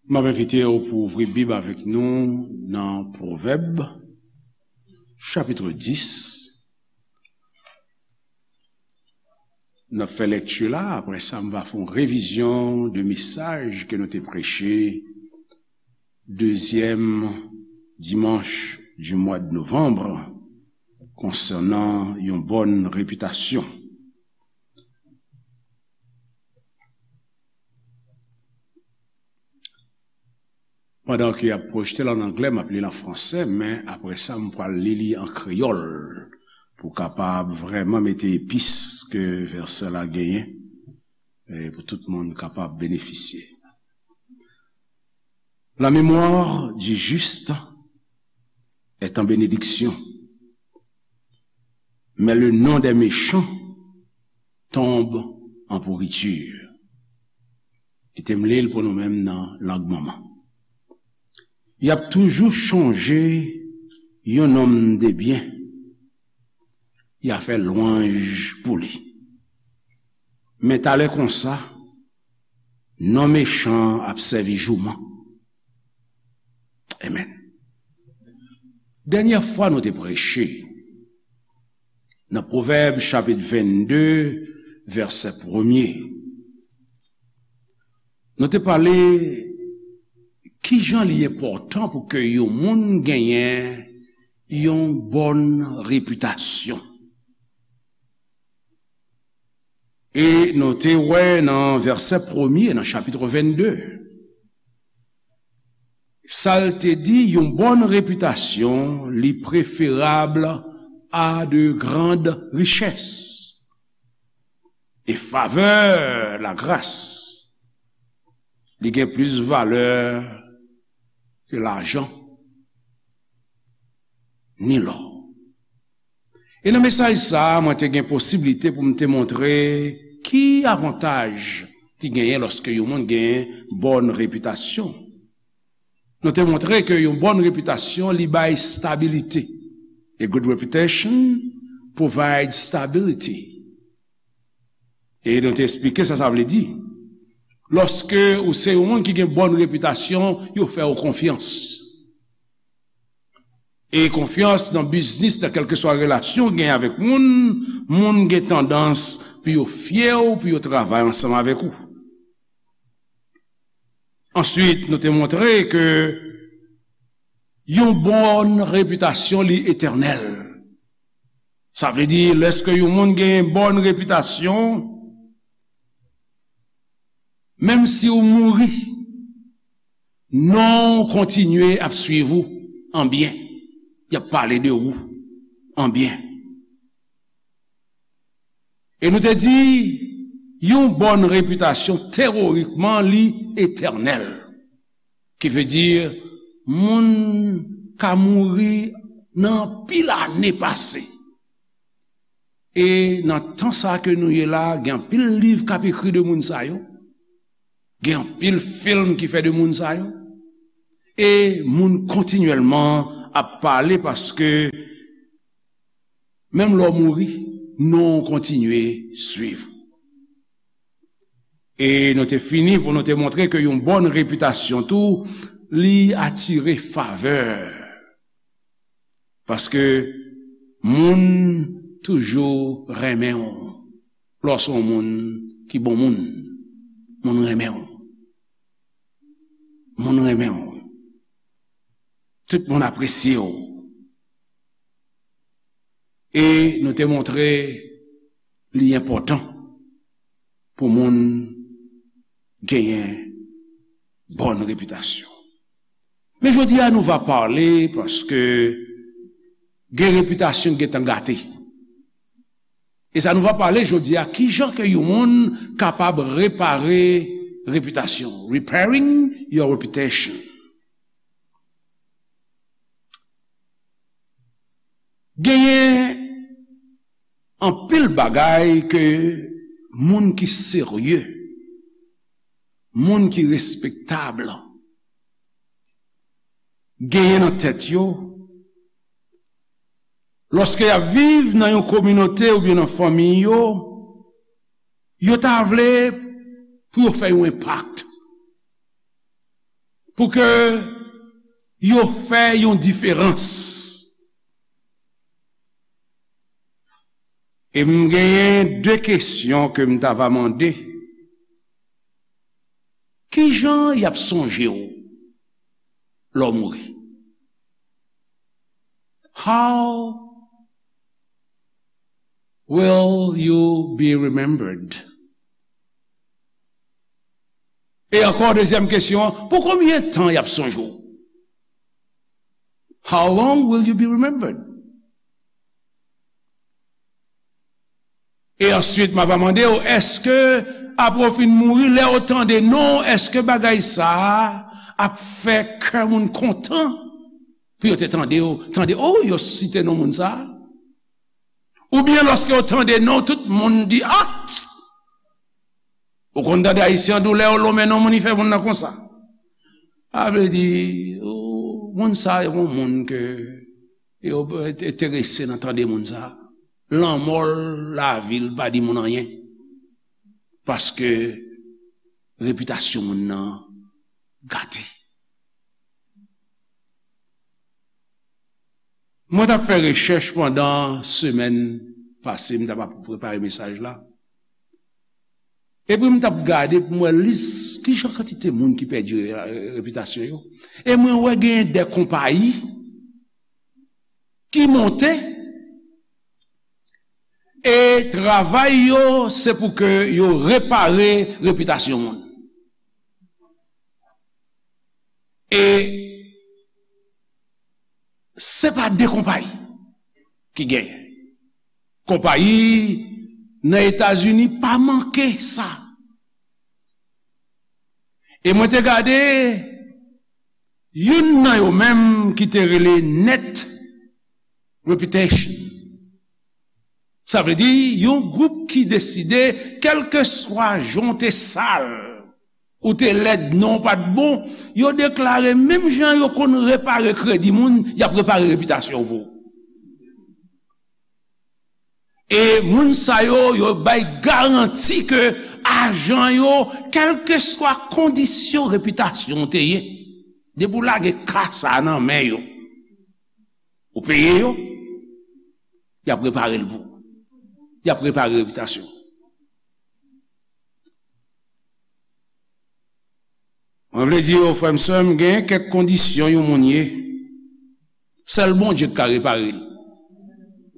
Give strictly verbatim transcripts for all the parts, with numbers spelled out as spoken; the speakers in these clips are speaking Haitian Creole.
M ap envite w pou ouvri Bib avèk nou nan Pwovèb, chapit dis. N ap fè lekti la, apre sa, m va fè yon revizyon de mesaj ke nou te preche dezyèm dimanch di mwa de novanm konsènan yon bòn repitasyon. Pandan ke y ap pwojte l an anglè, m ap li l an fransè, men apre sa, m pral li li an kreyòl pou kapab vrèman mete epis ke vèsè la genyen, e pou tout moun kapab benefisye. La mémoire du juste est en bénédiction, mais le nom des méchants tombe en pourriture. Kite m li l pou nou menm nan lang manman. Y ap toujou chonje yon nonm de byen, y a fè lwanj pou li. Men talè konsa, non mechan ap sèvi jouman. Amen. Dènyè fwa nou te preche nan Pwovèb chapit vennde, vèsè premye, nou te pale kijan li enpòtan pou ke yon moun genyen yon bòn repitasyon. E nou te wè nan vèsè premye nan chapit vennde, sa l te di, yon bòn repitasyon, li preferab a de grandes richesses. E favè, lagras, li gen plis valè ke lajan ni lò. E nan mesaj sa a, mwen te gen posiblite pou m te montre ki avantaj ki genyen lòske yon moun gen bòn repitasyon. Nou te montre ke yon bòn repitasyon, li bay stabilite. A good reputation provides stability. E nou te eksplike sa sa vle di. Lòske ou se yon moun ki gen bòn repitasyon, yo fè w konfyans. E konfyans nan biznis, nan kèlkeswa relasyon w gen avèk moun, moun gen tandans pou yo fye w, pou yo travay ansanm avèk ou. Answit, nou te montre ke yon bòn repitasyon, li etènèl. Sa vle di, lèske yon moun gen bòn repitasyon, menm si w mouri, non w kontinye ap swiv ou an byen. Y ap pale de ou an byen. E nou te di, yon bòn repitasyon, teyorikman, li etènèl. Ki vle di, moun ka mouri nan anpil ane pase. E nan tan sa ke nou ye la, gen anpil liv k ap ekri de moun sa yo. Gen anpil fim ki fè de moun sa yo. E moun kontinyèlman ap pale paske menm lè w mouri, non w kontinye swiv. E nou te fini pou nou te montre ke yon bòn repitasyon tou, li atire favè. Paske moun toujou renmen w. Lè w se yon moun ki bon moun, moun renmen w. Moun renmen w. Tout moun apresye w. E nou te montre li enpòtan pou moun genyen bòn repitasyon. Men jodi a, nou va pale paske gen repitasyon ki gentan gate. E sa nou va pale jodi a, kijan ke yon moun kapab repare repitasyon, repairing your reputation. Genyen anpil bagay ke moun ki serye, moun ki respektab, genyen nan tèt yo, lòske y ap viv nan yon kominote oubyen nan fanmi yo, yo ta vle pou yo fè yon enpak. pou ke yo fè yon diferans. E m genyen de kesyon ke m ta va mande. Kijan y ap sonje w lè w mouri? How will you be remembered? E ankò, dezyèm kesyon an, pou konbyen tan y ap sonje w? How long will you be remembered? E answit, m a va mande w, èske apre w fin mouri, lè yo tande non w, èske bagay sa a ap fè kè moun kontan pou yo te tande w, tande, o, yo site non moun sa a? Oubyen lòske yo tande non w, tout moun di, a! Ou konn tande Ayisyen an di w lè yo lonmen non moun, li fè moun nan konsa. Sa vle di, o, moun sa a se yon moun ke yo enterese nan tande moun sa a. Lanmò l, lavi l pa di moun anyen. Paske repitasyon moun nan gate. Mwen t ap fè rechèch pandan semèn pase, m t ap ap prepare mesaj la. Epi m t ap gade pou m wè lis kijan kantite moun ki pèdi re-, repitasyon yo. E mwen wè genyen de konpayi ki monte, e travay yo se pou ke yo repare repitasyon moun. E se pa de konpayi ki genyen. Konpayi nan Etazini pa manke sa. E mwen te gade youn nan yo menm ki te rele Net Reputation. Sa vle di, yon gwoup ki deside, kèlkeswa jan w te sal, ou te lèd, non w pa t bon, yo deklare menm jan yo konn repare kredi moun, y ap repare repitasyon w pou ou. E moun sa yo, yo bay garanti ke ajan yo, kèlkeswa kondisyon repitasyon w te ye, depi w lage ka sa a nan men yo, ou peye yo, y ap repare l pou ou. Y ap repare repitasyon w. Mwen vle di yo, frè m, sè m, gen kèk kondisyon yon moun ye, sèl Bondye ki ka repare l.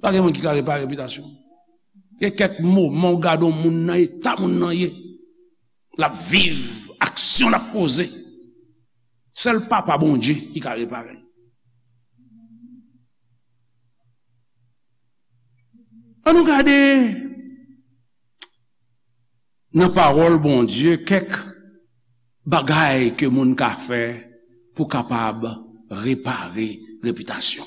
Pa gen moun ki ka repare repitasyon. Gen kèk moman w gade yon moun nan eta moun nan ye. L ap viv, aksyon l ap poze. Sèl Papa Bondye ki ka repare l. Ann nou gade nan pawòl Bondye kèk bagay ke moun ka fè pou kapab repare repitasyon.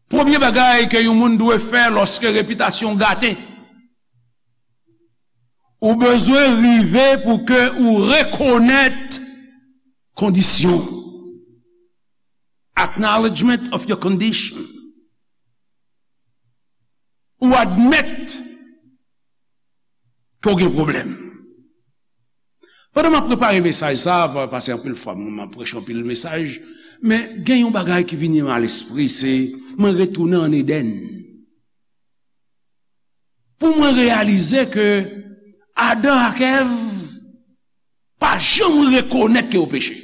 Premye bagay ke yon moun dwe fè lòske repitasyon gate, ou bezwen rive pou ke ou rekonèt kondisyon. Acknowledgement of your condition. Ou admèt ke w gen pwoblèm. Pandan m ap prepare mesaj sa a, pa-, paske anpil fwa m, m ap preche anpil mesaj, men gen yon bagay ki vini m a lespri, se mwen retounen ann Edenn. Pou mwen reyalize ke Adan ak Èv pa janm rekonèt ke yo peche.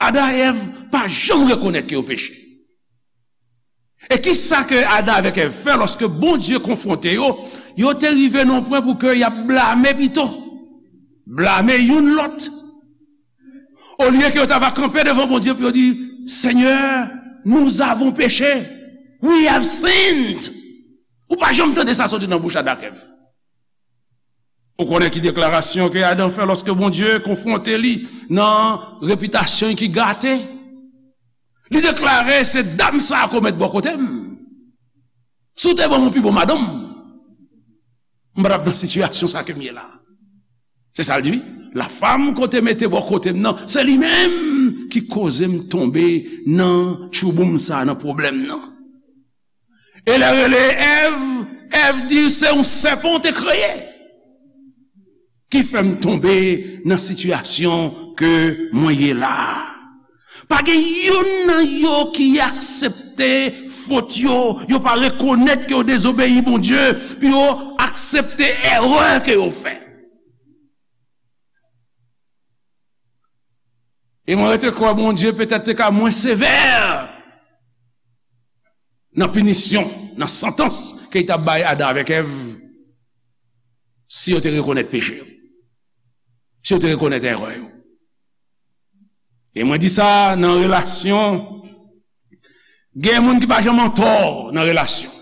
Adan ak Èv pa janm rekonèt ke yo peche. E kisa ke Adan avèk Èv fè lòske Bondye konfwonte yo? Yo te rive nan yon pwen pou ke y ap blame pito. Blame youn lòt. Olye ke yo ta va kanpe devan Bondye pou yo di, Seigneur, nous avons péché. We have sinned. Ou pa janm tande sa soti nan bouch Adan ak Èv. Ou konnen ki deklarasyon ke Adan fè lòske Bondye konfwonte li nan repitasyon ki gate? Li deklare, se dam sa a ke w met bò kote m. Si w te ban m yon pi bon madanm, m pa t ap nan sitiyasyon sa ke m ye la. Se sa l di, wi. La femme ke w te mete bò kote m nan, se li menm ki koze m tonbe nan tchouboum sa, nan pwoblèm nan. E lè rele Èv, Èv di se yon sèpan w te kreye. ki fè m tonbe nan sitiyasyon ke mwen ye la a. Pa gen youn nan yo ki aksepte fot yo, yo pa rekonèt ke yo dezobeyi Bondye, pou yo aksepte erè ke yo fè. E mwen rete kwè Bondye petèt te ka mwen sevè nan pinisyon, nan santans ke li t ap bay Adan avèk Èv, si yo te rekonèt peche yo, si yo te rekonèt erè yo. E mwen di sa nan relasyon, gen moun ki pa janm antò nan relasyon.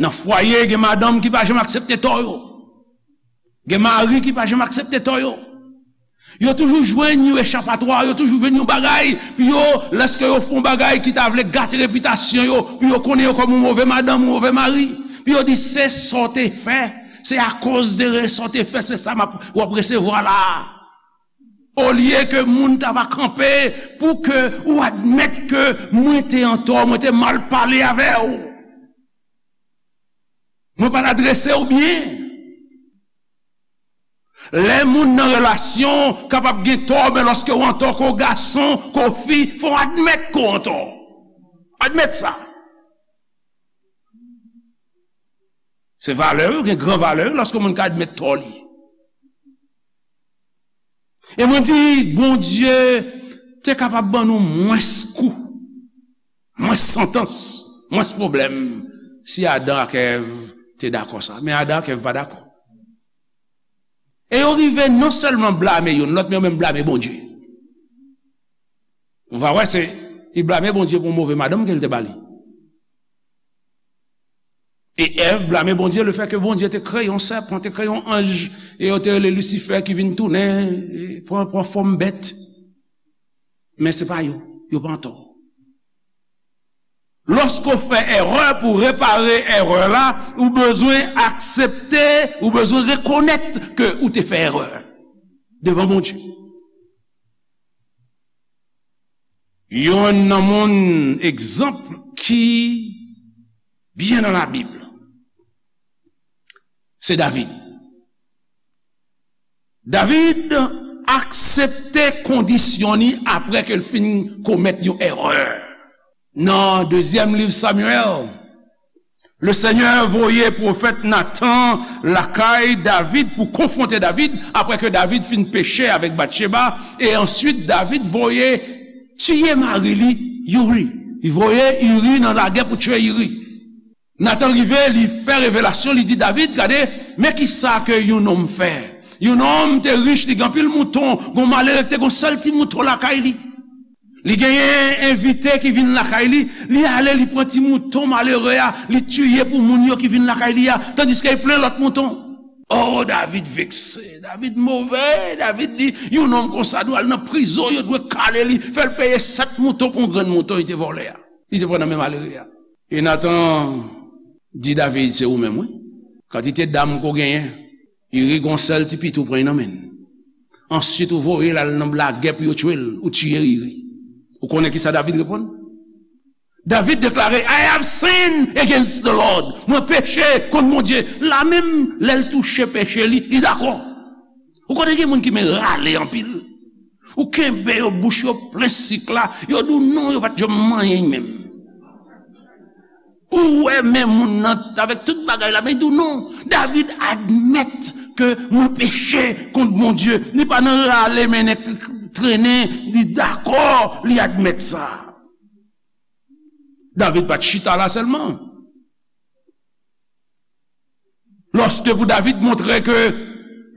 Nan fwaye, gen madanm ki pa janm aksepte tò yo. Gen mari ki pa janm aksepte tò yo. Yo toujou jwenn yon echapatwa, yo toujou jwenn yon bagay, pou yo, lèske yo fè yon bagay ki ta vle gate repitasyon yo, pou yo konnen yo kòm yon move madanm, yon move mari, pou yo di se sa w te fè, se akoz de re-, sa w te fè, se sa m ap, w ap resevwa la a. Olye ke moun ta va kanpe pou ke ou admèt ke mwen te antò, mwen te mal pale avè w. Mwen pa t adrese w byen. Lè moun nan relasyon kapab gen tò, men lòske w antò, ke w gason, ke w fi, fò w admèt ke w antò. Admèt sa. Se valè yo, gen gran valè yo, lòske moun ka admèt tò li. E mwen di, Bondye te kapab ban nou mwens kou, mwens santans, mwens pwoblèm, si Adan ak Èv te dakò sa. Men Adan ak Èv pa dakò. E yo rive non sèlman blame youn lòt, men yo menm blame Bondye. Ou va wè, se, li blame Bondye pou yon move madanm ke l te ba li. E Èv blame Bondye lefètke Bondye te kreye yon sèpan, te kreye yon anj, e yo te rele Lisifè ki vin tounen, e pran, pran fòm bèt. Men se pa yo, yo pa antò. Lòske w fè erè, pou repare erè la, ou bezwen aksepte, ou bezwen rekonèt ke ou te fè erè devan Bondye. Youn nan moun egzanp ki byen nan Labib, se David. David aksepte kondisyon li apre ke l fin komèt yon erè. Nan dezyèm liv Samyèl, Lesenyè voye pwofèt Natan lakay David pou konfwonte David, apre ke David fin peche avèk Batcheba, e answit David voye tiye mari li, Iri. Li voye Iri nan lagè pou tiye Iri. Natan rive, li fè revelasyon, li di David, gade, men kisa ke yon nonm fè. Yon nonm te rich, li gen anpil mouton, gon malere ki te gon sèl ti mouton lakay li. Li genyen envite ki vin lakay li, li ale, li pran ti mouton malere a, li tiye pou moun yo ki vin lakay li a, tandiske li plen lòt mouton. Oh, David vekse, David move, David di, yon nonm konsa dwe al nan prizon, yo dwe kale li, fè l peye sèt mouton pou yon grenn mouton li te vòlè a, li te pran nan men malere a. E Natan di David, se ou menm, wi. Kantite dam ke w genyen, Iri gon sèl ti pito w pran nan men l. Answit, ou voye l al nan lagè pou yo tiye l, ou tiye Iri. Ou konnen kisa David reponn? David deklare, I have sinned against the Lord. Mwen peche kont Bondye. La menm, lè l touche peche li, li dakò. Ou konnen gen moun ki men rale anpil. Ou kenbe yo, bouch yo plen sik la, yo di w non, yo pa t janm manyen menm. Ou wè men moun nan avèk tout bagay la, men li di w non. David admèt ke mwen peche kont Bondye. Li pa nan rale mennen k-, k-, trennen, li dakò, li admèt sa. David pa t chita la sèlman. Lòske pou David montre ke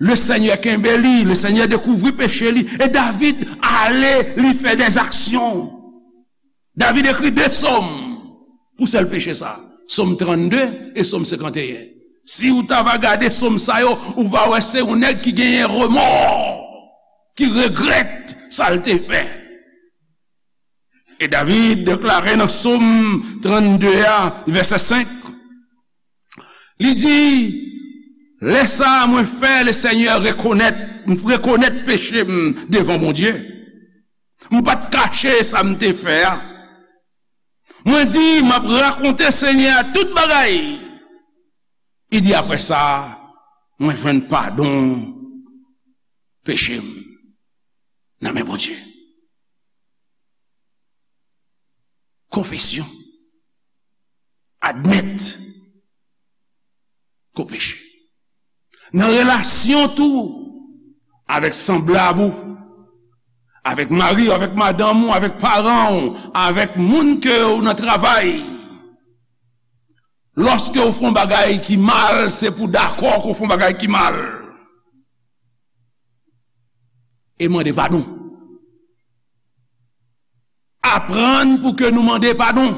Lesenyè kenbe li, Lesenyè dekouvri peche li, e David ale, li fè dèzaksyon. David ekri de sòm pou sèl peche sa, Sòm trannde e Sòm senkanteyen. Si w ta va gade sòm sa yo, ou va wè se yon nèg ki genyen remò, ki regrèt sa l te fè. E David deklare nan Sòm trannde a, vèsè senk, li di, lè sa a, mwen fè Lesenyè rekonèt, m rekonèt peche m devan Bondye. M pa t kache sa m te fè a. Mwen di, m ap rakonte Senyè a tout bagay. Li di, apre sa, Mwen jwenn padon peche m nan men Bondye. Konfesyon. Admèt ke w peche. Nan relasyon tou avèk sanblab ou, avèk mari w, avèk madanm ou, avèk paran w, avèk moun ke w nan travay. Lòske w fè yon bagay ki mal, se pou w dakò ke w fè yon bagay ki mal. E mande padon. Aprann pou ke nou mande padon.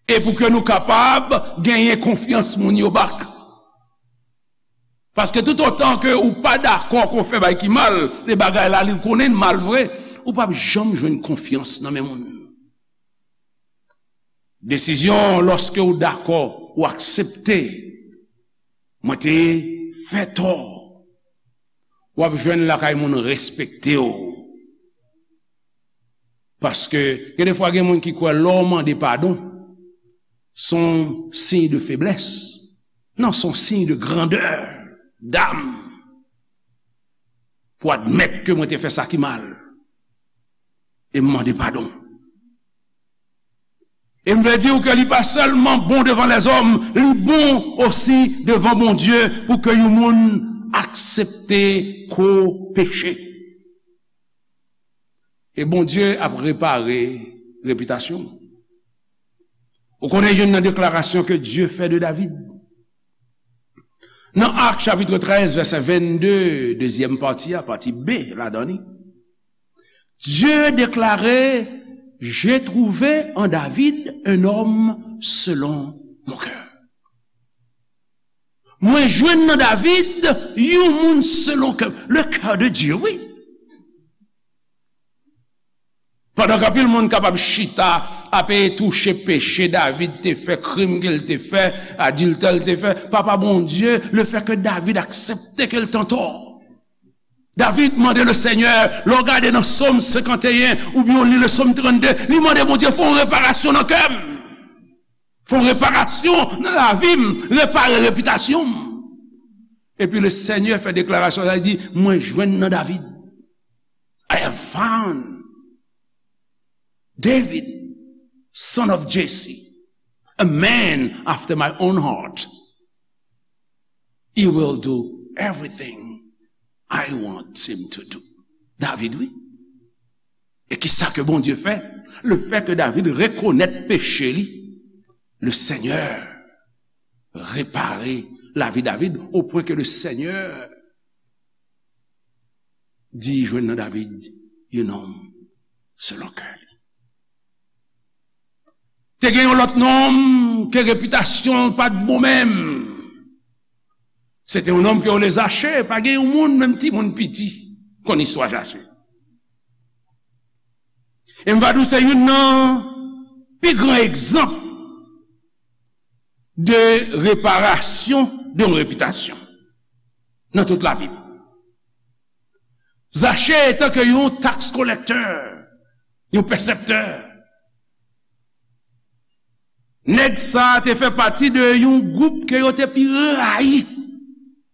E pou ke nou kapab genyen konfyans moun yo back. Paske toutotan ke ou pa dakò ke w fè bagay ki mal, e bagay la li konnen l mal vre, ou p ap janm jwenn konfyans nan men moun. Desizyon, lòske w dakò, ou aksepte, mwen te fè tò, w ap jwenn lakay moun respekte w. Paske gen de fwa gen moun ki kwè lè w mande padon, se yon siy de feblès. Non, se yon siy de grandè dam pou admèt ke mwen te fè sa ki mal e m mande padon. E m vle di w ke li pa sèlman bon devan lèzòm, li bon osi devan Bondye pou ke yon moun aksepte ke w peche. E Bondye ap repare repitasyon w. Ou konnen youn nan deklarasyon ke Dye fè de David? Nan Ak chapit trèz, vèsè vennde, dezyèm pati a, pati B ladan li, Dieu déclarait, j'ai trouvé en David un homme selon mon cœur. Mwen jwenn nan David yon moun selon kè m. Le cœur de Dieu, wi. Pandan ke anpil moun kapab chita ap touche peche David te fè, krim ke l te fè, adiltè l te fè, Papa Bondye, le fè ke David aksepte ke l t antò. David mande le Senyè, lè w gade nan Sòm senkanteyen oubyen w li le Sòm trannde, li mande Bondye fè yon reparasyon nan kè m. Fè yon reparasyon nan lavi m, repare repitasyon m. Epi le Senyè fè deklarasyon sa, li di, mwen jwenn nan David. I have found David, son of Jesse, a man after my own heart. He will do everything I want him to do. David, wi. E ki sa ke Bondye fè? Le fè ke David rekonèt peche li, le Senyè repare lavi David, o pwen ke le Senyè di jwenn nan David yon nonm selon kè li. Te gen yon lòt nonm ke repitasyon l pa t bon menm. Se te yon nonm ke yo rele Zache, pa gen yon moun, menm timoun piti, konn istwa Zache. E m va di w se youn nan pi gran egzanp de reparasyon de yon repitasyon nan tout Labib. Zache etan ke yon tax collector, yon pèsèptè, nèg sa a te fè pati de yon gwoup ke yo te pi rayi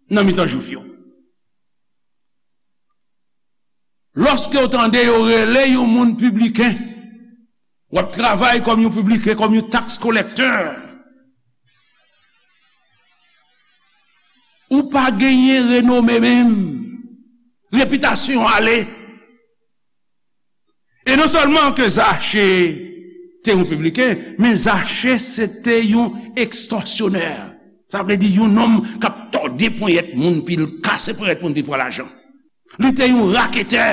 nan mitan Jwif yo. Lòske w tande yo rele yon moun pibliken, w ap travay kòm yon pibliken, kòm yon tax collector, ou pa genyen renome menm. Repitasyon ale. E non sèlman ke Zache te yon pibliken, men Zache se te yon ekstòsyonè. Sa vle di yon nonm k ap tòde ponyèt moun, pi l kase ponyèt moun, pi l pran lajan. Li te yon raketè,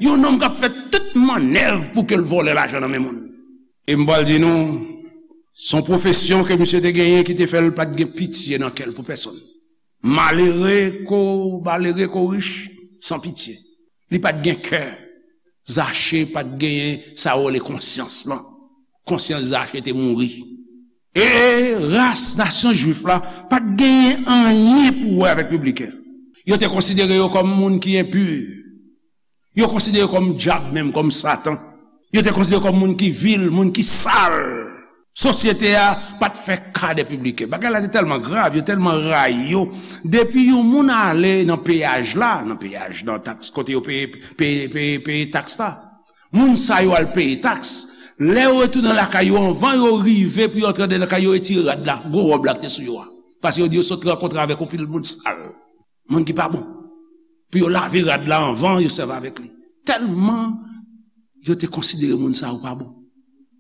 yon nonm k ap fè tout mannèv pou ke l vòlè lajan nan men moun. E m pral di nou, se yon pwofesyon ke misye te genyen ki te fè l pa t gen pitye nan kè l pou pèsonn. Malere ko, malere ko rich, san pitye. Li pa t gen kè. Zache pa t genyen sa yo rele konsyans lan. Konsyans Zache te mouri. E ras nasyon jwif la pa t genyen anyen pou wè avèk pibliken. Yo te konsidere yo kòm moun ki enpi. Yo konsidere yo kòm dyab menm, kòm Satan. Yo te konsidere yo kòm moun ki vil, moun ki sal. Sosyete a pa t fè ka de pibliken. Bagay la te tèlman grav, yo tèlman rayi yo. Depi yon moun ale nan peyaj la, nan peyaj, nan taks kote yo peye, peye, peye, peye taks la, moun sa yo al peye taks. Lè yo retounen lakay yo, anvan yo rive pou yo antre anndan lakay yo, yo retire rad la, gwo wòb la ki te sou yo a. Paske yo di yo sot rankontre avèk yon pil moun sal, moun ki pa bon. Pou yo lave rad la anvan yo sèvi avèk li. Tèlman yo te konsidere moun sa yo pa bon.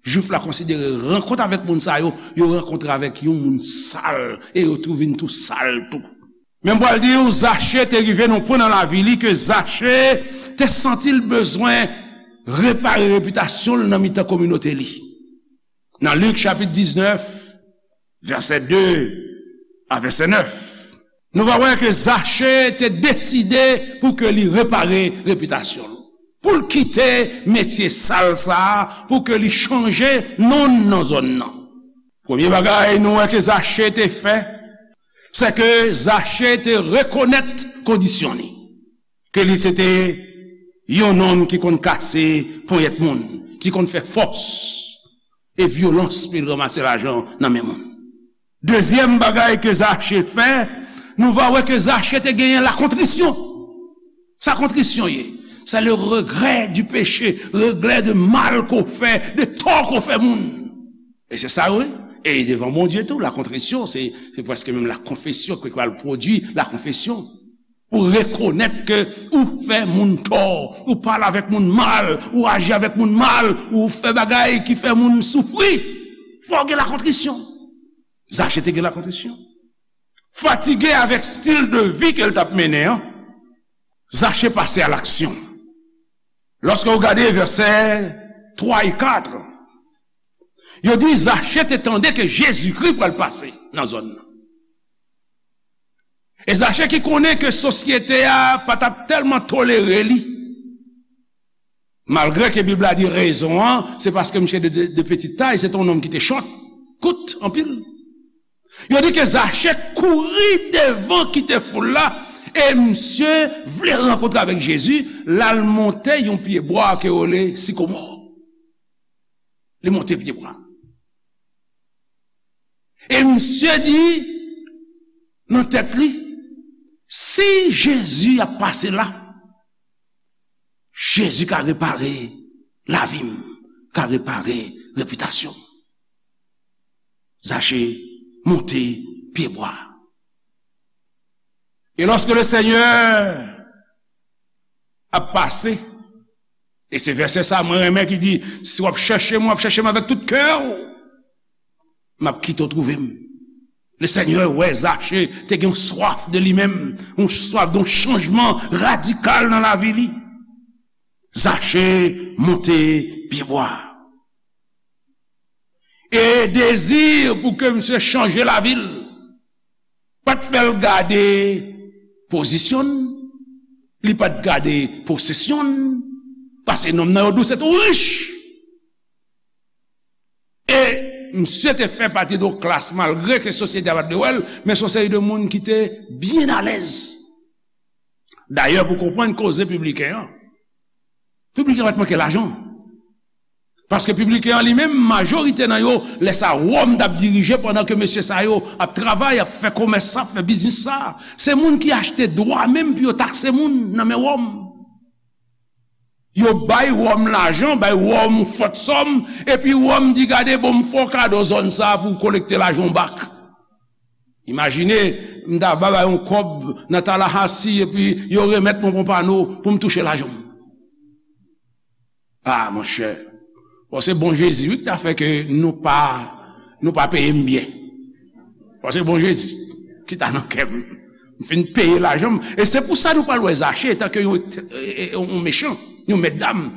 Jwif la konsidere rankont avèk moun sa yo, yo rankontre avèk yon moun sal e yo tou vin tou sal tou. Men m pral di w, Zache te rive nan yon pwen nan lavi li ke Zache te santi l bezwen repare repitasyon l nan mitan kominote li. Nan Lik chapit diznèf, vèsè de a vèsè nèf, nou va wè ke Zache te deside pou ke li repare repitasyon l, pou l kite metye sal sa a, pou ke li chanje non l nan zòn nan. Premye bagay nou wè ke Zache te fè, se ke Zache te rekonèt kondisyon li, ke li se te yon nonm ki konn kase ponyèt moun, ki konn fè fòs e vyolans pou l ranmase lajan nan men moun. Dezyèm bagay ke Zache fè, nou va wè ke Zache te genyen lakontrisyon. Sa kontrisyon ye? C'est le regret du péché, regret de mal ke w fè, de tò ke w fè moun. E se sa, wi. E devan Bondye tou, lakontrisyon, se, se prèske menm lakonfesyon ke pral pwodui lakonfesyon. Ou rekonèt ke ou fè moun tò, ou pale avèk moun mal, ou aji avèk moun mal, ou fè bagay ki fè moun soufri. Fò w gen lakontrisyon. Zache te gen lakontrisyon. Fatige avèk stil de vi ke l t ap mennen an, Zache pase a laksyon. Lòske w gade vèsè twa e kat, yo di Zache te tande ke Jezikri pral pase nan zòn nan. E Zache ki konnen ke sosyete a pa t ap tèlman tolere li, malgre ke Bib la di rezon an, se paske misye de, de, de petite taille, se te yon nonm ki te chòt, kout anpil. Yo di ke Zache kouri devan kite foul la, e misye vle rankontre avèk Jezi, l al monte yon pyebwa ke yo rele sikomò. Li monte pyebwa. E misye di nan tèt li, si Jezi ap pase la, Jezi ka repare lavi m, ka repare repitasyon m. Zache monte pyebwa. E lòske Lesenyè ap pase, e se vèsè sa mwen renmen ki di, si w ap chèche m, w ap chèche m avèk tout kè w, m ap kite w twouve m. Lesenyè wè Zache te gen yon swaf de li menm, yon swaf de yon chanjman radikal nan lavi li. Zache monte pyebwa. E dezi pou ke misye chanje lavi l pa t fè l gade pozisyon l, li pa t gade posesyon l, paske nonm nan yo di w se te yon rich. E misye te fè pati de yon klas, malgre ke sosyete a pa t vle wè l, men se yon seri de moun ki te byen alèz. Dayè, pou konprann koze pibliken an, pibliken an pa t manke lajan. Paske pibliken an li menm, majorite nan yo, lè sa Wòm t ap dirije pandan ke mesye sa yo ap travay, ap fè komès sa, ap fè biznis sa. Se moun ki achte dwa menm pou yo takse moun nan men Wòm. Yo bay Wòm lajan, bay Wòm yon fòt sòm, epi Wòm di, gade, bon, m fè w kado zòn sa a pou w kolekte lajan w bak. Imajine, m ta ba bay yon kòb nan Tallahassee, epi yo remèt mwen Pompano pou m touche lajan m. A, monchè, bon, se bon Jezi, wi, ki ta fè ke nou pa, nou pa peye m byen. Bon, se bon Jezi ki ta nan kè m. M fin peye lajan m. E se pou sa nou pral wè Zache, etan ke yon, e, e, yon mechan, yon mètdam.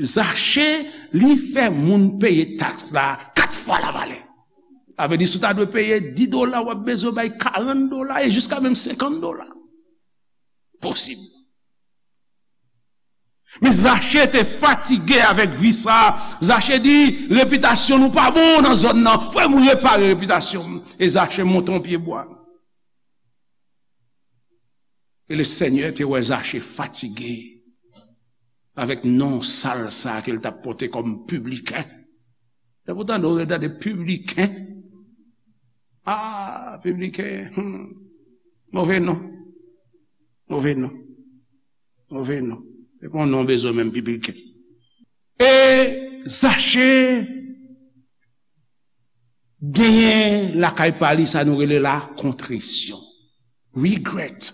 Zache, li fè moun peye taks la kat fwa lavalè. Sa vle di, si w ta dwe peye dis dola, w ap bezwen bay karant dola e jiska menm senkant dola. Posib. Men Zache te fatige avèk vi sa. Zache di, repitasyon nou pa bon nan zòn nan. Fò m repare repitasyon m. E Zache monte yon pyebwa. E Lesenyè te wè Zache fatige avèk non sal sa ke l t ap pote kòm pibliken. Lè pou tande, ou tande pibliken. Ah, pibliken. Hmm. Move non. Move non. Move non. Se pa yon non bezwen menm, pibliken. E Zache genyen lakay pa li sa nou rele la kontrisyon. Regret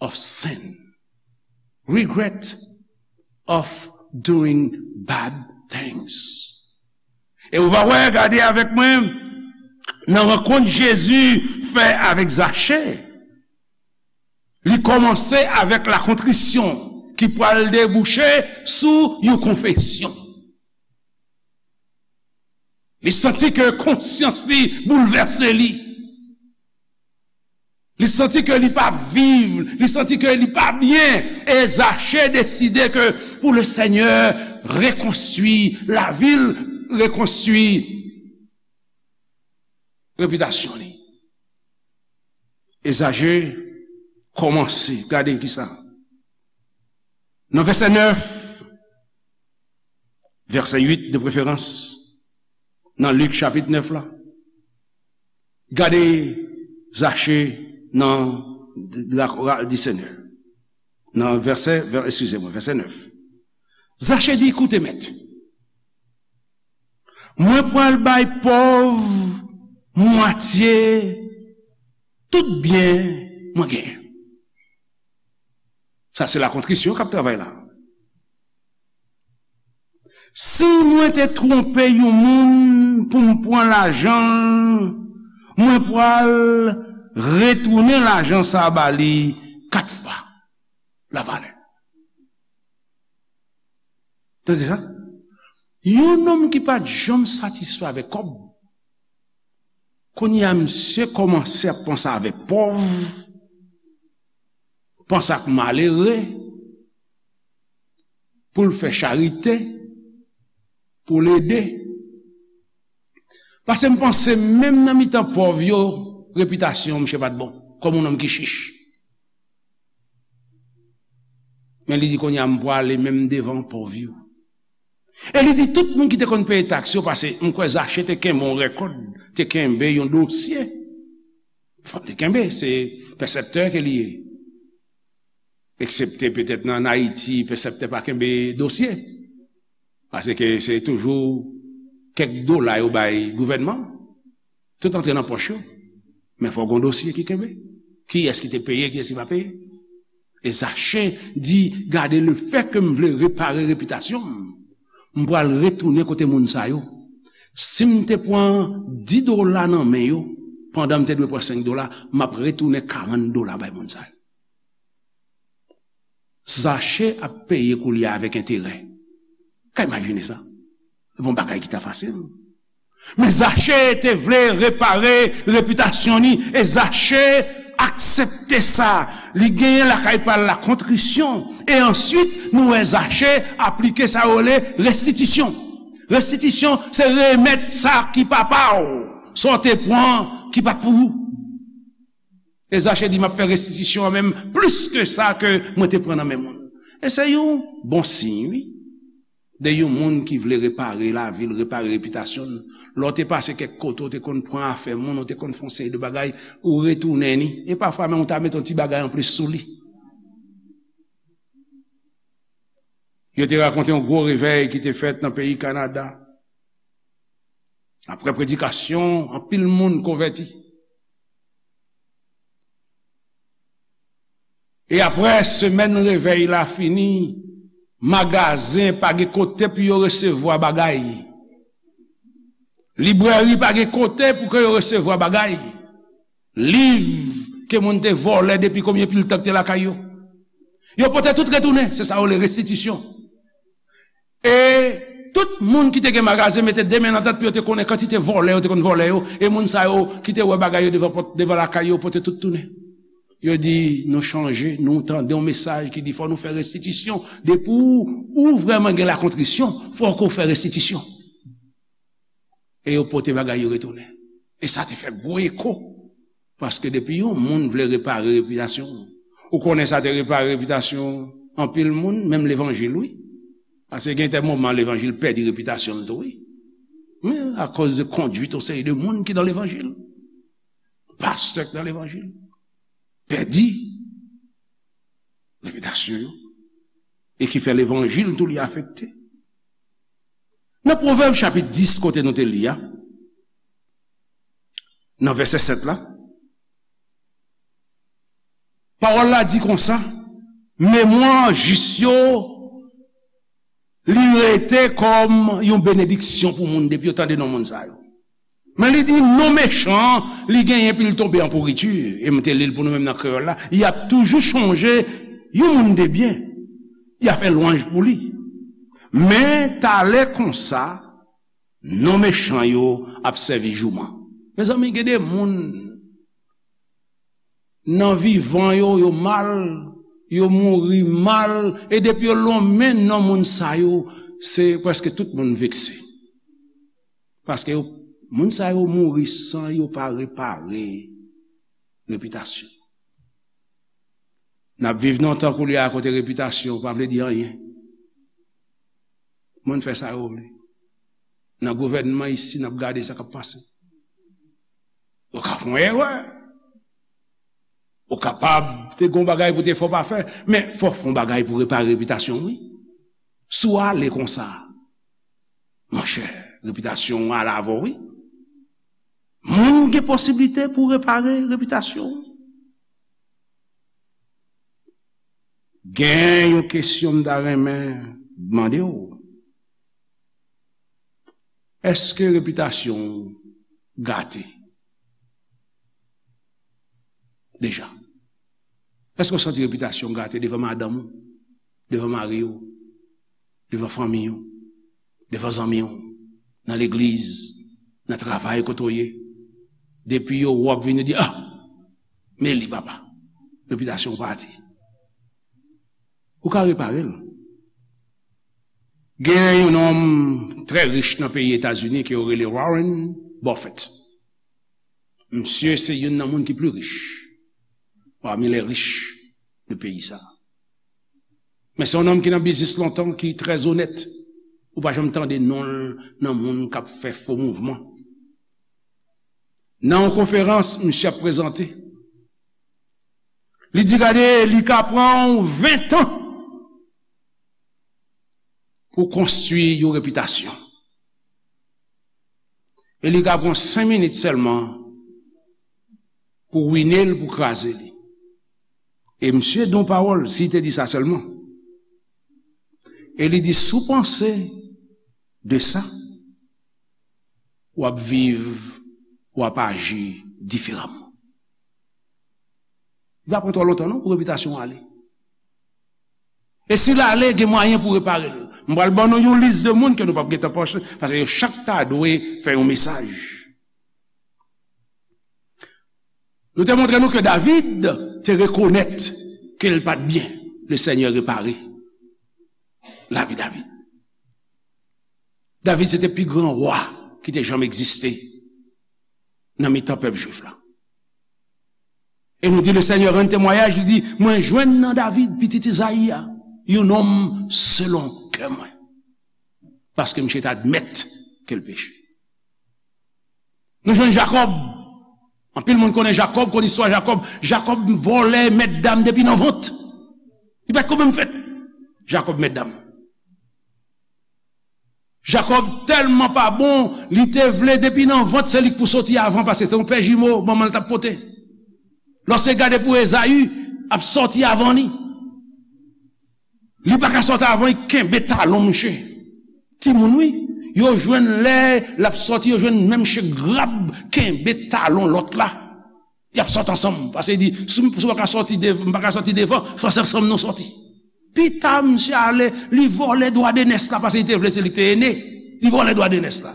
of sin. Regret of doing bad things. E ou va wè, gade avèk mwen, nan rankont Jezi fè avèk Zache, li kòmanse avèk lakontrisyon ki pral debouche sou yon konfesyon. Li santi ke konsyans li boulvèse li. Li santi ke li pa viv, li santi ke li pa byen. E Zache deside ke pou le Senyè rekonstwi lavi l, rekonstwi repitasyon li. E Zache kòmanse, gade kisa. Nan vèsè nèf, vèsè uit de preferans, nan Lik chapit nèf la, gade Zache nan di Senyè. Nan vèsè, vè, eskize mwen, vèsè nèf. Zache di, koute, Mèt, mwen pral bay pòv mwatye tout byen mwen genyen. Sa se lakontrisyon k ap travay la. Si mwen te twonpe yon moun pou m pran lajan l, mwen pral retounen lajan sa a ba li kat fwa lavalè. Tande sa? Yon nonm ki pa t janm satisfè avèk kòb, kounye a misye kòmanse ap panse avèk pòv, panse ak malere, pou l fè charite, pou l ede. Paske m panse menm nan mitan pòv yo, repitasyon misye pa t bon, kòm yon nonm ki chich. Men li di, kounye a m pwale menm devan pòv yo. E li di tout moun ki te konn peye taks yo, paske m kwè Zache te kenbe yon rèkòd, te kenbe yon dosye. Fò l te kenbe, se pèsèptè ke li ye. Eksepte petèt nan Ayiti, pèsèptè pa kenbe dosye. Paske se toujou kèk dola yo bay gouvènman. Tout antre nan pòch yo. Men fò gon dosye ki kenbe. Kiyès ki te peye, kiyès ki pa peye. E Zache di, gade, lefètke m vle repare repitasyon m, m pral retounen kote moun sa yo. Si m te pran dis dola nan men yo, pandan m te dwe pran senk dola, m ap retounen karant dola bay moun sa yo. Zache ap peye koulye a avèk enterè. Ka imajine sa? Se pa yon bagay ki ta fasil. Men Zache te vle repare repitasyon li, e Zache aksepte sa. Li genyen lakay pa l lakontrisyon. E answit, nou wè Zache aplike sa yo rele restitisyon. Restitisyon, se remèt sa ki pa pa w, sa w te pran ki pa t pou ou. E Zache di, m ap fè restitisyon an menm plis ke sa ke mwen te pran nan men moun. E se yon bon siy, wi. De yon moun ki vle repare lavi l, repare repitasyon l. Lè w te pase kèk kote, w te konn pran afè moun, w te konn fè yon seri de bagay, ou retounen ni. E pafwa menm ou ta mete yon ti bagay anplis sou li. Yo te rakonte yon gwo revèy ki te fèt nan peyi Kanada. Apre predikasyon, anpil moun konvèti. E apre semèn revèy la fini, magazen pa gen kote pou yo resevwa bagay. Librèri pa gen kote pou ke yo resevwa bagay. Liv ke moun te vòlè depi konbyen pil tan ki te lakay yo. Yo pote tout retounen, se sa yo rele restitisyon. E tout moun ki te gen magazen mete de men nan tèt pou yo te konnen kantite vòlè yo te konn vòlè yo, e moun sa yo ki te wè bagay yo devan pòt, devan lakay yo, pote tout tounen. Yo di, nou chanje, nou tande yon mesaj ki di fò nou fè restitisyon. Depi w, ou vrèman gen lakontrisyon, fò ke w fè restitisyon. E yo pote bagay yo retounen. E sa te fè gwo eko. Paske depi yon moun vle repare repitasyon, ou konnen sa te repare repitasyon anpil moun, menm levanjil, wi. Paske gen de moman levanjil pèdi repitasyon l tou, wi. Men akoz de kondwit yon seri de moun ki nan levanjil, pastè k nan levanjil, pèdi repitasyon yo, e ki fè levanjil tou li afekte. Nan Pwovèb chapit dis, kote nou te li a, nan vèsè sèt la, pawòl la di konsa, memwa jis yo, li rete kòm yon benediksyon pou moun depi yo tande non moun sa yo. Men li di, non mechan, li genyen epi l tonbe an pouriti. E m te li l pou nou menm nan kreyòl la, y ap toujou chonje yon moun de byen. Y a fè lwanj pou li. Men talè konsa, non mechan yo ap sèvi jouman. Mezanmi, gen de moun nan vivan yo, yo mal, yo mouri mal, e depi yo lonmen non moun sa yo, se prèske tout moun vekse. Paske yo, moun sa yo mouri san yo pa repare repitasyon. N ap viv nan tan koulye a kote repitasyon pa vle di anyen. Moun fè sa yo vle. Nan gouvènman isi, n ap gade sa k ap pase. Ou ka fè yon erè. Ou kapab te gon bagay pou te fè w pa fè, men fò w fè yon bagay pou repare repitasyon w, wi. Si w ale konsa, monchè, repitasyon w ale avè w, wi. Moun gen posiblite pou repare repitasyon w. Gen yon kesyon m ta renmen mande w. Èske repitasyon w gate deja? Èske w santi repitasyon w gate devan madanm ou, devan mari w, devan fanmi w, devan zanmi w, nan legliz, nan travay kote w ye? Depi yo wè w ap vin, yo di, ah, men li papa, repitasyon w pati. Ou ka repare l. Gen yon nonm trè rich nan peyi Etazini ke yo rele Warren Buffett. Misye se youn nan moun ki pli rich parmi les riches de peyi sa. Men se yon nonm ki nan biznis lontan, ki trè onèt. Ou pa janm tande non l nan moun k ap fè fo mouvman. Nan yon konferans misye ap prezante, li di, gade, li ka pran w ven tan pou konstwi yon repitasyon. E li ka pran senk minit sèlman pou wine l, pou kraze li. E misye di yon pawòl, si te di sa sèlman. E li di, si w panse de sa, w ap viv, w ap aji diferaman. Li pa pran twò lontan non pou repitasyon w ale. E si l ale, gen mwayen pou repare l. M pral ban nou yon lis de moun ke nou p ap gentan panse, paske yo chak ta dwe fè yon mesaj. Nou te montre nou ke David te rekonèt ke l pa t byen. Le Senyè repare lavi David. David se te pi gran wa ki te janm egziste nan mitan pèp jwif la. E nou di, le Senyè rann temwayaj, li di, mwen jwenn nan David, pitit Izayi a, yon nonm selon kè mwen. Paske misye t admèt ke l peche. Nou jwenn Jakòb. Anpil moun konnen Jakòb, konn istwa Jakòb. Jakòb vòlè, mèt dam depi nan vant. Li pa t ko menm fèt. Jakòb mèt dam. Jakòb tèlman pa bon, li te vle depi nan vant se li k pou soti avan, paske se yon pè jimo manman l t ap pote. Lòske gade pou Ezayi ap sòti avan li. Li pa ka sòti avan, li kenbe talon misye. Timoun, wi. Yo jwenn lè l ap sòti, yo jwenn menm misye grab kenbe talon lòt la. Y ap sòt ansanm. Paske li di, si m, si m pa ka sòti dev-, m pa ka sòti devan, fò se ansanm nou sòti. Pita, misye ale, li vòlè dwa de nès la, paske li te vle se li k te ene. Li vòlè dwa de nès la.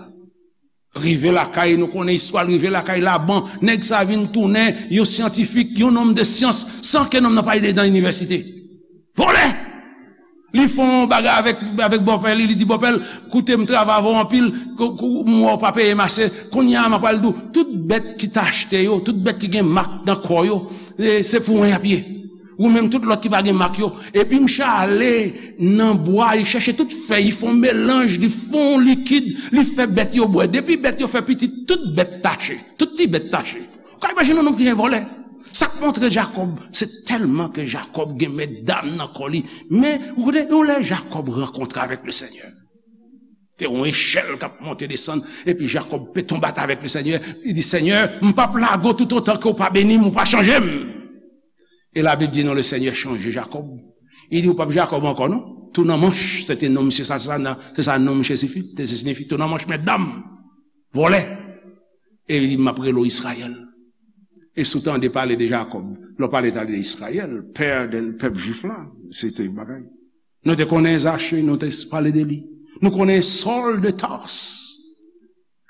Rive lakay, nou konnen istwa l, rive lakay Laban, nèg sa vin tounen yon syantifik, yon nonm de syans, san ke nonm nan pa ale nan inivèsite. Vòlè! Li fè yon bagay avèk, avèk bòpè li, li di bòpè l, koute m travay avè w anpil, kou, kou, m wè w pa peye m ase, kounye a m ap pral di w, tout bèt ki t achte yo, tout bèt ki gen mak nan kò yo, e, se pou mwen y ap ye. Ou menm tout lòt ki pa gen mak yo. Epi misye ale nan bwa, li chèche tout fèy, li fè yon melanj, li fè yon likid, li fè bèt yo bwè. Depi bèt yo fè pitit, tout bèt tache. Tout ti bèt tache. Ou ka imajine yon nonm ki gen vòlè. Sa k montre Jakòb, se tèlman ke Jakòb gen medam nan kò li. Men, ou konnen, yon lè Jakòb rankontre avèk Lesenyè. Te yon echèl k ap monte desann, epi Jakòb pe tonbe atè avèk Lesenyè. Li di, Senyè, m p ap lage w toutotan ke w pa beni m, ou pa chanje m. E Labib di nou, Lesenyè chanje Jakòb. Li di, ou p ap Jakòb ankò, non. Tou nan manch, se te non misye sa, se sa, se sa non misye sifi, te siyifi, tou nan manch, medam, vòlè. E li di, m ap rele w Izrayèl. E si w tande pale de Jakòb, lè w pale tande de Izrayèl, pè de pèp jwif la, se te yon bagay. Nou te konnen Zache, nou te pale de li. Nou konnen Sòl de Tars,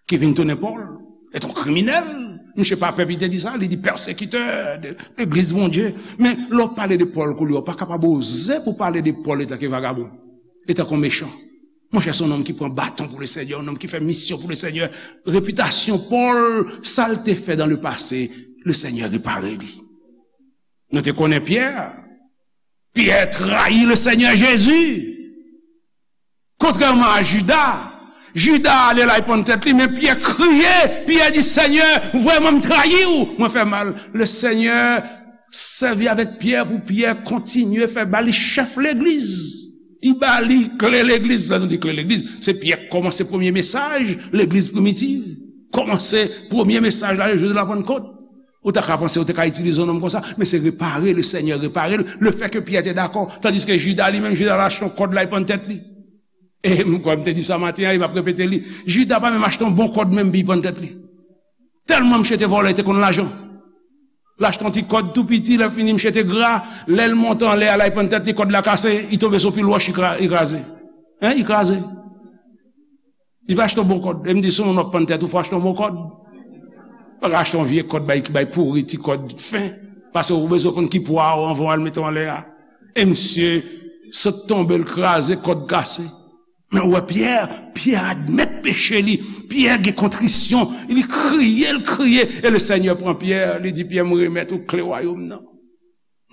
ki vin tounen Pòl. Se te yon kriminèl. Misye pa pè, li te di sa, li di pèsekitè de legliz Bondye. Men lè w pale de Pòl koulye a, w pa kapab oze pou pale de Pòl etanke vagabon, etanke yon mechan. Monchè, se yon nonm ki pran baton pou Lesenyè, yon nonm ki fè misyon pou Lesenyè. Repitasyon Pòl, sa l te fè dans le passé, Lesenyè repare li. Nou te konnen Pyè. Pyè trayi Lesenyè Jezi. Kontrèman a Jida, Jida ale l al pann tèt li, men Pyè kriye, Pyè di, Senyè, vrèman m trayi w, mwen fè mal. Lesenyè sèvi avèk Pyè pou Pyè kontinye fè ba li chèf legliz. Li ba li kle legliz. Lè nou di kle legliz, se Pyè k kòmanse premye mesaj legliz primitiv. Kòmanse premye mesaj la, jou de la Pannkòt. Ou ta ka panse ou te ka itilize yon nonm konsa, men se repare, Lesenyè repare l, lefètke Pyè te dakò, tandiske Jida li menm, Jida al achte yon kòd, l al pann tèt li. E m kwè m te di sa maten an, e m ap repete li. Jida pa menm achte yon bon kòd menm pou l pann tèt li. Tèlman misye te vòlè, li te konn lajan. L achte yon ti kòd tou piti, lè fini misye te gra, lè l monte anlè a, l al pann tèt li, kòd la kase, li tonbe sou pil wòch, li kra-, li kraze. Hein, li kraze. Li pa achte yon bon kòd. E m di, si yon moun w ap pann tèt ou, fò achte yon bon kòd. Pa ka achte yon vye kòd bay, ki bay pouri, ti kòd fen. Paske ou bezwen konn ki pwa w anvan w al mete w anlè a. E misye sot tonbe, l kraze, kòd kase. Men ou wè Pyè, Pyè admèt peche li. Pyè gen kontrisyon. Li kriye, l kriye. E Lesenyè pran Pyè, li di, Pyè, m remèt ou kle wayòm nan.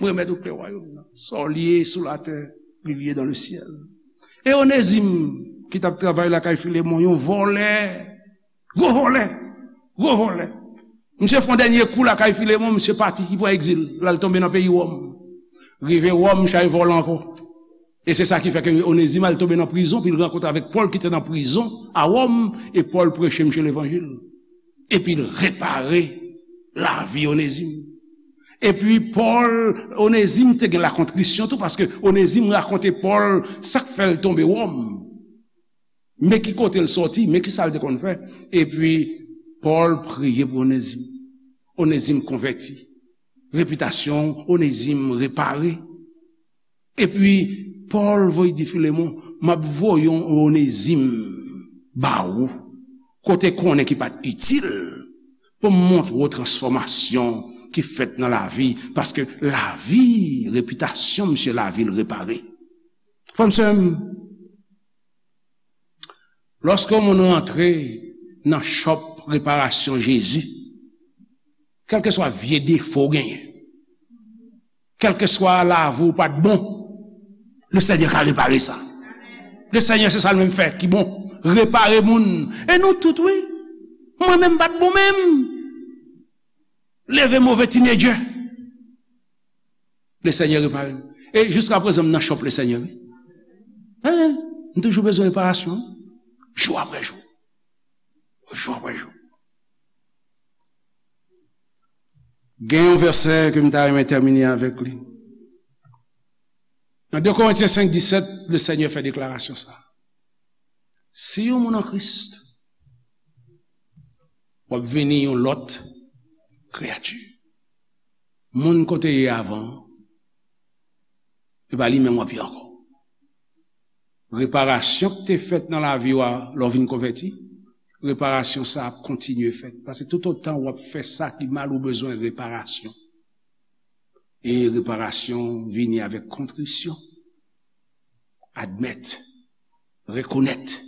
Mwen remèt ou kle wayòm nan. Sa w lye sou latè, li lye dans le ciel. E Onezim, ki t ap travay lakay Filemon, yon vòlè, gwo vòlè, gwo vòlè. Misye fè yon dènye kou lakay Filemon, misye pati, li pran egzil, l al tonbe nan peyi Wòm. Rive Wòm, misye al vòlè ankò. E se sa ki fè ke Onezim al tonbe nan prizon, pi l rankontre avèk Pòl ki te nan prizon a Wòm, e Pòl preche misye levanjil. Epi l repare lavi Onezim. Epi Pòl, Onezim te gen lakontrisyon tou, paske Onezim rakonte Pòl sa k fè l tonbe Wòm. Men ki kote l sòti, men ki sa l te konn fè. Epi Pòl priye pou Onezim. Onezim konvèti. Repitasyon Onezim repare. Epi, Pòl voye di Filemon, m ap voye yon Onezim ba ou, kote konnen ki pa t itil, pou m montre w transfòmasyon ki fèt nan lavi, paske lavi, repitasyon misye, lavi l repare. Frè m, sè m, lòske yon moun rantre nan chòp reparasyon Jezi, kèlkeswa vye defo w genyen, kèlkeswa lavi w pa t bon, Lesenyè ka repare sa. Lesenyè, se sa l menm fè ki bon. Repare moun. E nou tout, wi. Mwen menm m pa t bon menm. Leve move tinedjè. Lesenyè repare m. E jiska prezan, m nan chòp Lesenyè, wi. Hein? M toujou bezwen reparasyon. Jou apre jou. Jou apre jou. Gen yon vèsè ke m ta renmen tèmine avèk li. Nan de Korentyen senk disèt, Lesenyè fè deklarasyon sa. Si yon moun an Kris, w ap vini yon lòt kreyati. Moun ke w te ye avan, e pa li menm w ap ye ankò. Reparasyon ki te fèt nan lavi w a, lè w vin konvèti, reparasyon sa ap kontinye fèt. Paske toutotan w ap fè sa ki mal, ou bezwen reparasyon. E reparasyon vini avèk kontrisyon. Admèt, rekonèt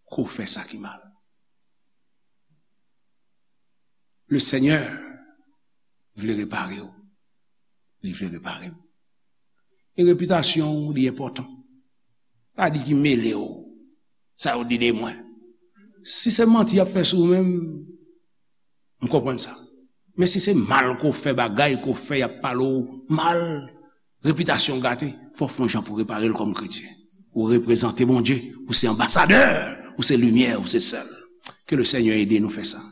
ke w fè sa ki mal. Lesenyè vle repare w. li vle repare m. E repitasyon w, li enpòtan. Pa di ki mele w. Sa yo di de mwen. Si se manti y ap fè sou ou menm, m konprann sa. Men si se mal ke w fè, bagay ke w fè, y ap pale w mal, repitasyon w gate, fò w fè yon jan pou repare l kòm kretyen. Ou reprezante Bondye, ou se anbasadè, ou se limyè, ou se sèl. Ke le Seigneur ede nou fè sa.